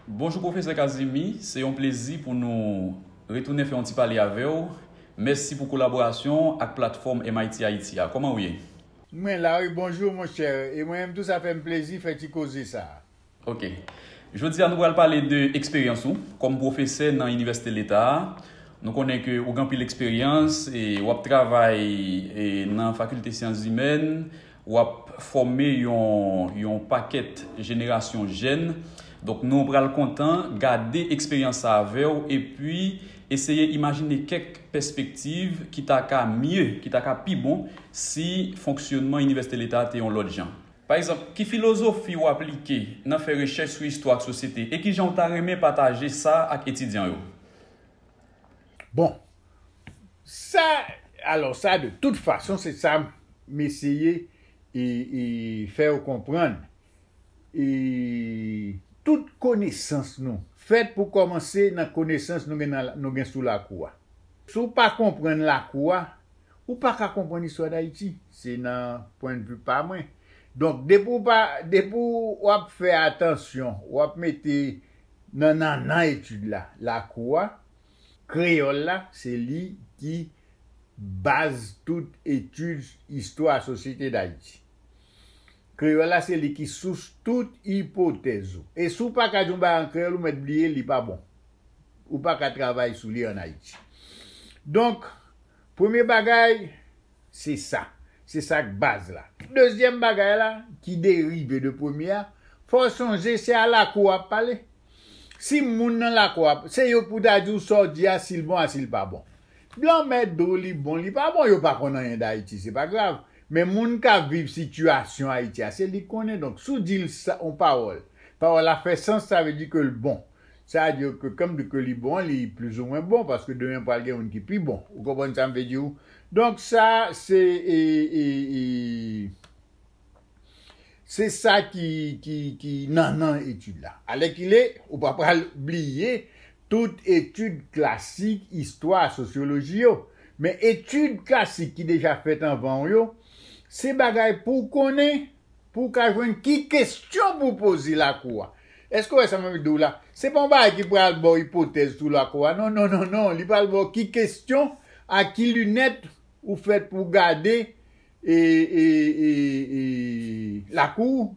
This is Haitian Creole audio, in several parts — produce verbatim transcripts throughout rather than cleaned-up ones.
Bonjou Pwofesè Kazimi, se yon plezi pou nou retounen fè yon ti pale avè w. Mèsi pou kolaborasyon ak platfòm M I T Haiti a. Kòman w ye? Mwen la wi, bonjou monchè. E mwen menm tou sa fè m plezi fè ti koze sa. Ok. Jodi a nou pral pale de eksperyans ou kòm pwofesè nan Inivèsite Leta a. Nou konnen ke ou gen anpil eksperyans e w ap travay e nan Fakilte Syans Imèn, w ap fòme yon, yon pakèt jenerasyon jèn. Donk nou pral kontan gade eksperyans sa avè w epi eseye imajine kèk pèspektiv ki ta ka mye, ki ta ka pi bon si fonksyonman Inivèsite Leta a te yon lòt jan. Pa egzanp, ki filozofi w aplike nan fè rechèch sou istwa ak sosyete e ki jan w ta renmen pataje sa ak etidyan yo? Bon, sa, alò sa de tout fason se sa m eseye e, e fè w konprann. E tout konesans nou fèt pou kòmanse nan konesans nou gen, nan, nou gen sou lakou a. Si w pa konprann lakou a, ou pa ka konprann istwa Dayiti. Se nan pwennvi pa mwen. Donk, depi w pa, depi w ap fè atansyon, w ap mete nan nannan etid la, lakou a, kreyòl la, se li ki baz tout etid istwa sosyete Dayiti. Kreyòl la, se li ki sous tout ipotèz ou. E si w pa ka di yon bagay an kreyòl, ou mèt bliye, li pa bon. Ou pa ka travay sou li ann Ayiti. Donk, premye bagay, se sa. Se sa k baz la. Dezyèm bagay la, ki derive de premye a, fò w sonje se a lakou w ap pale. Si moun nan lakou a, se yo k pou ta di w sa w di a, si l bon a, si l pa bon. Blan mèt di w li bon, li pa bon, yo pa konn anyen d Ayiti, se pa grav. Men moun k ap viv sitiyasyon Ayiti a, se li k konnen. Donk, si w di l sa, yon pawòl, pawòl la fè sans, sa vle di ke l bon. Sa vle di ke, kan m di ke li bon, li plizoumwen bon, paske demen pral gen youn ki pi bon. Ou konprann sa m vle di w? Donk, sa, se, e, e, e, se sa ki, ki, ki nannan etid la. Alèkile, ou pa pral bliye tout etid klasik, istwa, sosyoloji yo. Men etid klasik ki deja fèt anvan w yo, se bagay pou w konnen, pou w ka jwenn ki kesyon pou w poze lakou a. Èske w wè sa m ap di w la? Se pa yon bagay ki pral ba w ipotèz sou lakou a. Non, non, non, non. Li pral ba w ki kesyon, ak ki linèt ou fèt pou w gade e, e, e, e, lakou w,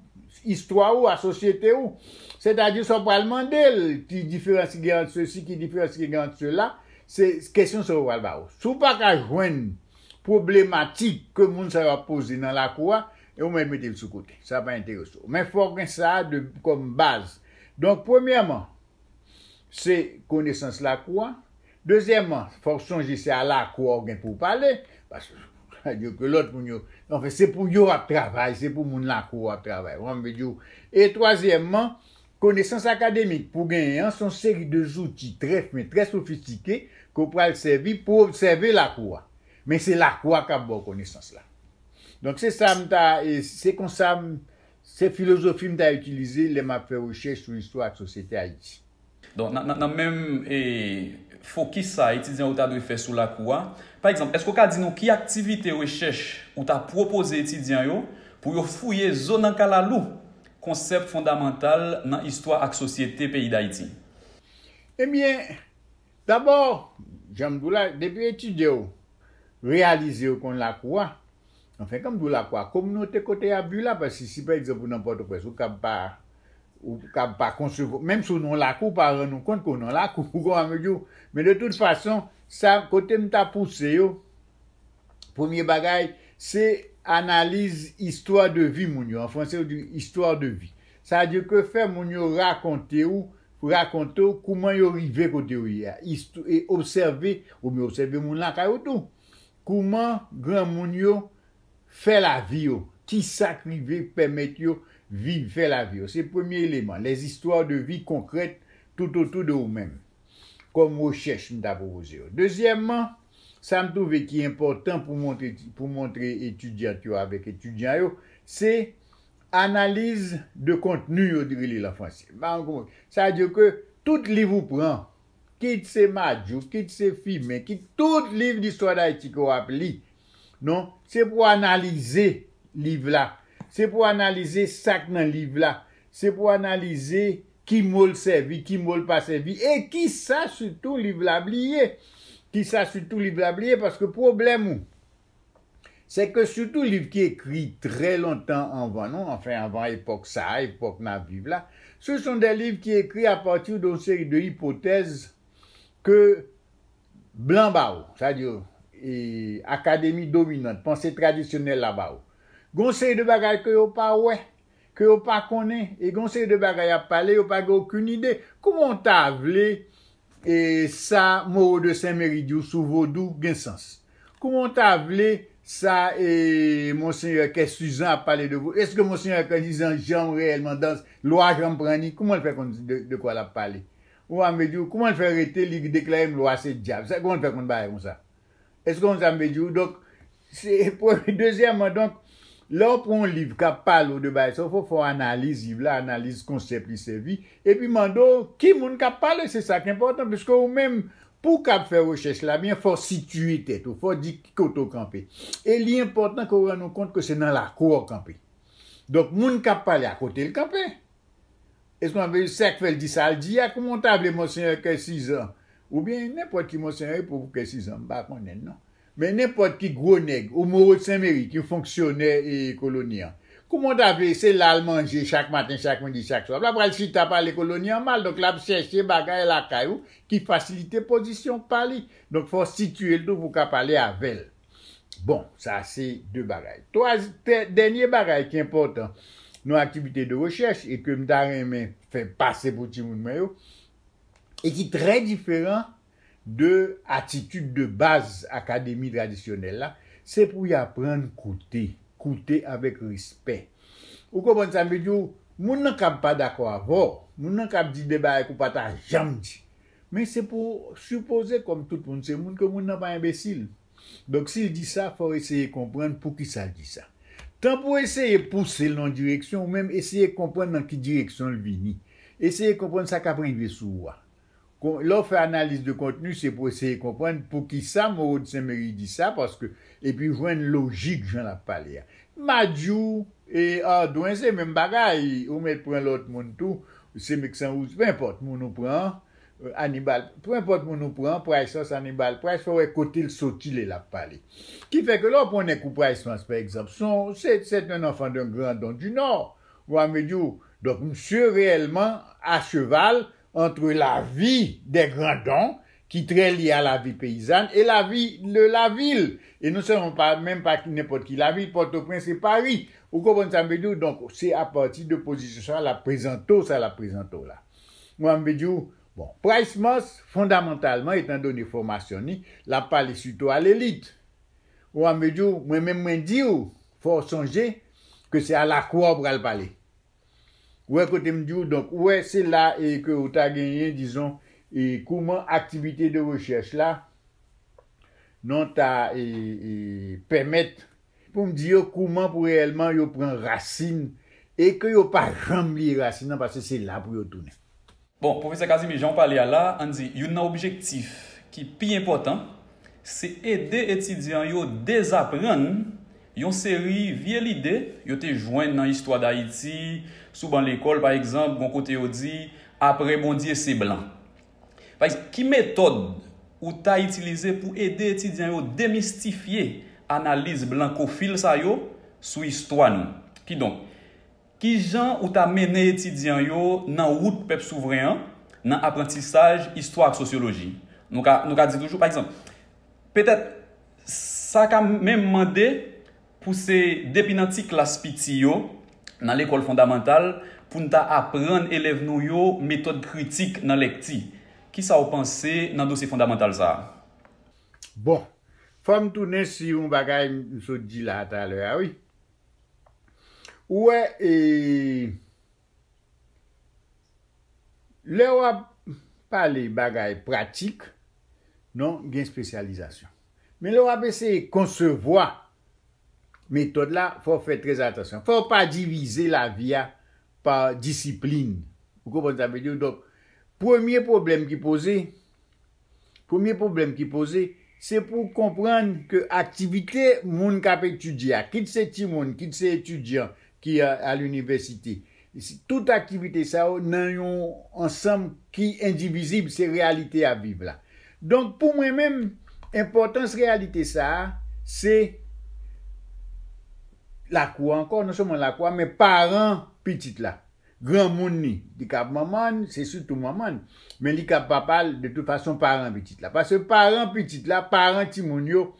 istwa w, a sosyete w. Sètadi sa w pral mande l, ki diferans ki gen ant sesi, ki diferans ki gen ant sela, se kesyon sa yo pral ba w. Si w pa ka jwenn pwoblematik ke moun sa yo ap poze nan lakou a, e ou mèt mete l sou kote. Sa pa enterese w. Men fò w gen sa de, kòm baz. Donk, premyèman, se konesans lakou a. Dezyèmman, fò w sonje se a lakou a w gen pou w pale, paske sa di ke lòt moun yo, anfen, se pou yo w ap travay, se pou moun lakou a w ap travay. Ou konprann m vle di w? E twazyèmman, konesans akademik pou w genyen an, se yon seri de zouti trè fen, trè sofistike ke w pral sèvi pou w obsève lakou a. Men se lakou a k ap ba w konesans la. Donk, se sa m ta, e se konsa m, se filozofi m ta itilize lè m ap fè rechèch sou istwa ak sosyete Ayiti. Donk, nan, nan, nan menm, e, fokis sa a etidyan yo ta dwe fè sou lakou a, pa egzanp, èske w ka di nou ki aktivite rechèch ou ta pwopoze etidyan yo pou yo fouye zo nan kalalou konsèp fondamantal nan istwa ak sosyete peyi Dayiti? Ebyen, dabò, jan m di w la, depi etidye w reyalize yo konn lakou a, anfen, kan m di w lakou a, kominote kote y ap viv la, paske si, pa egzanp, ou nan Pòtoprens, ou kab pa, ou kab pa konsevwa, menm si w nan lakou, ou pa rann ou kont ke w nan lakou, ou konprann m di w? Men de tout fason, sa, kote m ta pouse yo, premye bagay, se analiz istwa de vi moun yo. An franse, yo di istwa de vi. Sa vle di ke fè moun yo rakonte w, rakonte w kouman yo rive kote yo ye a. Istw-, e obsève, oubyen obsève moun lakay ou tou. Kouman granmoun yo fè lavi yo, kisa k rive pèmèt yo viv, fè lavi yo. Se premye eleman, les histoires de vie concrètes tout autour de ou menm, kòm rechèch m ta pwopoze yo. Dezyèmman, sa m twouve ki enpòtan pou montre, pou montre etidyant yo avèk etidyan yo, se analiz de kontni yo rele l an franse. Sa vle di ke tout liv ou pran, kit se Madjouk, kit se Fimen, kit tout liv distwa Dayiti ke w ap li, non, se pou w analize liv la. Se pou w analize sa k nan liv la. Se pou w analize ki mo l sèvi, ki mo l pa sèvi, e kisa sitou liv la bliye. Kisa sitou liv la bliye, paske pwoblèm ou, se ke sitou liv ki ekri trè lontan anvan nou, anfen, anvan epòk sa a, epòk n ap viv la, ce sont des livres qui écrits à partir d'une série de hypothèses ke blan ba ou, sa di, e, akademi dominant, panse tradisyonèl la ba ou. Gon seri de bagay ke yo pa wè, ke yo pa konnen, e gon seri de bagay y ap pale, yo pa gen okenn ide. Kouman w ta vle, e, sa Moreau de Saint-Méry di w sou vodou gen sans? Kouman w ta vle sa, e, Monseyè Kè Sizan ap pale de vodou? Èske Monseyè Kè Sizan janm reyèlman dans, lwa janm pran ni? Kouman l fè konn de, de kwa l ap pale? Ou a m vle di w, kouman l fè rete, li deklare m lwa se dyab? Sa, kouman l fè konn bagay konsa? Èske w konn sa m vle di w? Donk, se premye. Dezyèmman, donk, lè w pran yon liv k ap pale w de bagay sa, fò, fò w analiz liv la, analiz konsèp li sèvi, epi mande w ki moun k ap pale, se sa k enpòtan, piske ou menm, pou w kab fè rechèch la byen, fò w sitiye tèt ou, fò w di ki kote w kanpe. E li enpòtan ke w rann ou kont ke se nan lakou w kanpe. Donk, moun k ap pale a, kote l kanpe? Èske w ap veye sa k fè l di sa l di a? Kouman w ta vle Monseyè Kè Sizan, oubyen nenpòt ki Monseyè, pou Kè Sizan, m pa konnen l non. Men nenpòt ki gwo nèg, ou Moreau de Saint-Méry, ki fonksyonè e koloni an. Kouman w ta vle se la l manje chak maten, chak midi, chak swa? L ap pral chita pale koloni an mal, donk l ap chèche bagay lakay ou ki fasilite pozisyon pa li. Donk fò w sitiye l tou pou w ka pale avè l. Bon, sa se de bagay. Twa, tè-, dènye bagay ki enpòtan nan aktivite de rechèch e ke m ta renmen fè pase pou timoun mwen yo, e ki trè diferan de atitid de baz akademi tradisyonèl la, se pou y aprann koute, koute avèk respè. Ou konprann sa m vle di w? Moun nan kab pa dakò avè w, moun nan kab di de bagay ke w pa ta janm di. Men se pou w sipoze, kòm tout moun se moun, ke moun nan pa enbesil. Donk, si l di sa, fò w eseye konprann poukisa l di sa. Tan pou w eseye pouse l nan yon direksyon, ou menm eseye konprann nan ki direksyon l vini. Eseye konprann sa k ap rive sou ou a. Kon-, lè w fè analiz de kontni, se pou w eseye konprann poukisa Moreau de Saint-Méry di sa, paske, epi jwenn lojik jan l ap pale a. Madjou e Ardouin, se menm bagay, ou mèt pran lòt moun tou, se Meksan Wouz, penenpòt moun ou pran, Hannibal, penenpòt moun ou pran, Price Mars, Hannibal Price, fò w wè kote l soti lè l ap pale. Ki fè ke lè w pran nèg kou Price Mars, pa egzanp, se yon, se, c'est un enfant d'un grand don du Nord. Ou a m vle di w, donk, misye reyèlman a cheval entre la vie des grands dons, ki trè lye a la vi peyizàn, e la vi de la vil. E non sèlman pa, menm pa nenpòt ki lavil, Pòtoprens e Pari. Ou konprann sa m vle di w? Donk, se apati de pozisyon sa l ap prezante w, sa l ap prezante w la. Mwen, m vle di w, bon, Price Mars, fondamantalman, etandone fòmasyon ni, l ap pale sitou a lelit. Mwen, m vle di w, mwen menm, mwen di w, fò w sonje ke se a lakou a w pral pale. Ou wè kote m di w, donk, ou wè, se la e ke ou ta genyen, dizon, e kouman aktivite de rechèch la, non, ta, e, e, pèmèt pou m di yo kouman pou reyèlman yo pran rasin e ke yo pa janm bliye rasin nan, paske se la pou yo tounen. Bon, Pwofesè Casimir, jan w pale a la, ann di, youn nan objektif ki pi enpòtan, se ede etidyan yo dezaprann yon seri vye lide yo te jwenn nan istwa Dayiti, sou ban lekòl, pa egzanp, gon kote yo di, apre Bondye, se blan. Pa egzanp, ki metòd ou ta itilize pou ede etidyan yo demistifye analiz blankofil sa yo sou istwa nou? Kidonk, kijan ou ta mennen etidyan yo nan wout pèp souvren an, nan aprantisaj istwa ak sosyoloji? Nou ka, nou ka di toujou, pa egzanp, petèt, sa ka menm mande pou se depi nan ti klas piti yo, nan lekòl fondamantal, pou n ta aprann elèv nou yo metòd kritik nan lèkti. Kisa w panse nan dosye fondamantal sa a? Bon, fò m tounen sou yon bagay m sot di la talè a, wi. Ou wè, e, lè w ap pale bagay pratik, non, gen espesyalizasyon. Men lè w ap eseye konsevwa metòd la, fò w fè trè atansyon. Fò w pa divize lavi a pa disiplin. Ou konprann sa m vle di w? Donk, premye pwoblèm ki poze, premye pwoblèm ki poze, se pou w konprann ke aktivite moun k ap etidye a, kit se timoun, kit se etidyan ki a, a linivèsite, Tout aktivite sa yo nan yon ansanm ki endivizib, se reyalite y ap viv la. Donk, pou mwen menm, enpòtans reyalite sa a, se lakou a ankò, non sèlman lakou a, men paran pitit la. Granmoun li, li kab manman l, se sitou manman l, men li kab papa l, de tout fason, paran pitit la. Paske paran pitit la, paran timoun yo,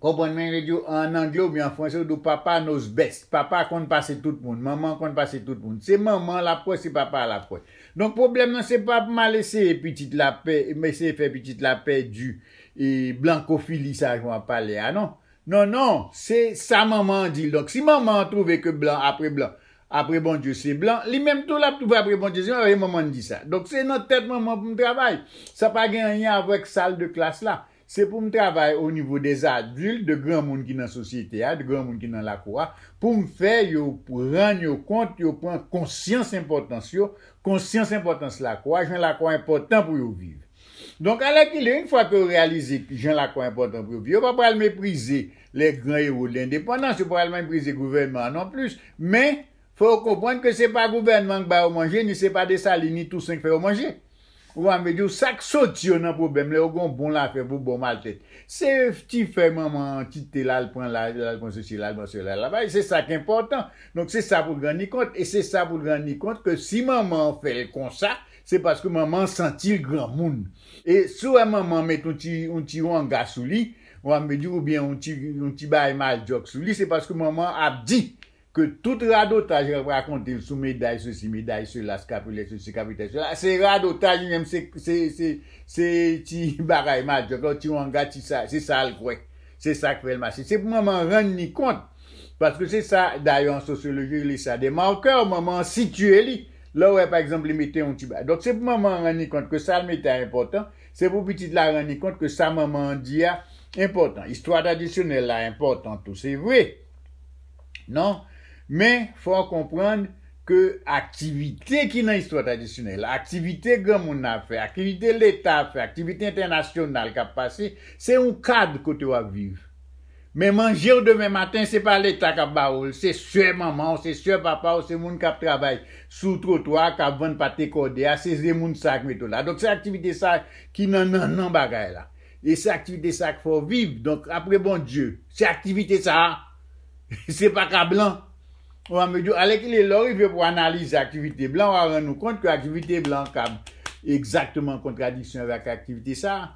konprann mwen, yo di w an angle oubyen an franse, yo di w papa knows best. Papa konn pase tout moun, manman konn pase tout moun. Se manman l ap kwè, se papa l ap kwè. Donk, pwoblèm nan, se pa pou m al eseye pitit la pè, m eseye fè pitit la pèdi e blankofili sa jan w ap pale a, non. Non, non, se sa manman an di l. Donk, si manman an twouve ke blan apre blan, apre Bondye se blan, li menm tou l ap twouve apre Bondye se blan, paske manman an di sa. Donk, se nan tèt manman pou m travay. Sa pa gen anyen avèk sal de klas la. Se pou m travay o nivo dè adilt, de granmoun ki nan sosyete a, de granmoun ki nan lakou a, pou m fè yo rann yo kont, yo pran konsyans enpòtans yo, konsyans enpòtans lakou a, jan lakou a enpòtan pou yo viv. Donk, alèkile, yon fwa ke yo reyalize jan lakou a enpòtan pou yo viv, yo pa pral meprize les grands héros de l'indépendance, yo pa pral meprize gouvènman an non plis, men fò yo konprann ke se pa gouvènman k ba yo manje, ni se pa Desalin, ni Tousen k fè yo manje. Ou konprann, yo, sa k soti yo nan pwoblèm, lè yo gen yon bon lafè pou bon maltèt. Se ti fè manman an kite l al pran la, l al pran sesi, l al pran sela, la bay, se sa k enpòtan. Donk, se sa pou l rann li kont, e se sa pou l rann li kont ke si manman an fè l konsa, se paske manman an santi l granmoun. E si w wè manman an met yon ti, yon ti wanga sou li, ou konprann, oubyen yon ti, yon ti bagay maljòk sou li, se paske manman an ap di ke tout radotaj y ap rakonte l sou meday sesi, meday sela, kapilè sesi, kapitèl sela, se radotaj li menm, se, se, se, se ti bagay maljòk la, ti wanga, ti sa, se sa l kwè. Se sa k fè l mache. Se pou manman an rann li kont. Paske se sa, dayè, an sosyoloji, yo rele sa de marqueurs, manman an sitiye li. Lè w wè, pa egzanp, li mete yon ti bagay. Donk, se pou manman an rann li kont ke sa l mete a enpòtan. Se pou pitit la rann li kont ke sa manman an di a enpòtan. Istwa tradisyonèl la enpòtan tou, se vre. Non? Men, fò w konprann ke aktivite ki nan istwa tradisyonèl la, aktivite granmoun nan ap fè, aktivite Leta ap fè, aktivite entènasyonal k ap pase, se yon kad kote w ap viv. Men manje w demen maten, se pa Leta k ap ba ou l, se sè manman w, se sè papa w, se moun k ap travay sou twotwa a, k ap vann pate kòde a, se, se moun sa k mete w la. Donk, se aktivite sa ki nan nannan bagay la. E se aktivite sa k fè w viv. Donk, apre Bondye, se aktivite sa a, se pa ka blan. Ou konprann, alèkile, lè w rive pou analize aktivite blan, w a rann ou kont ke aktivite blan ka egzakteman an kontradiksyon avèk aktivite sa a.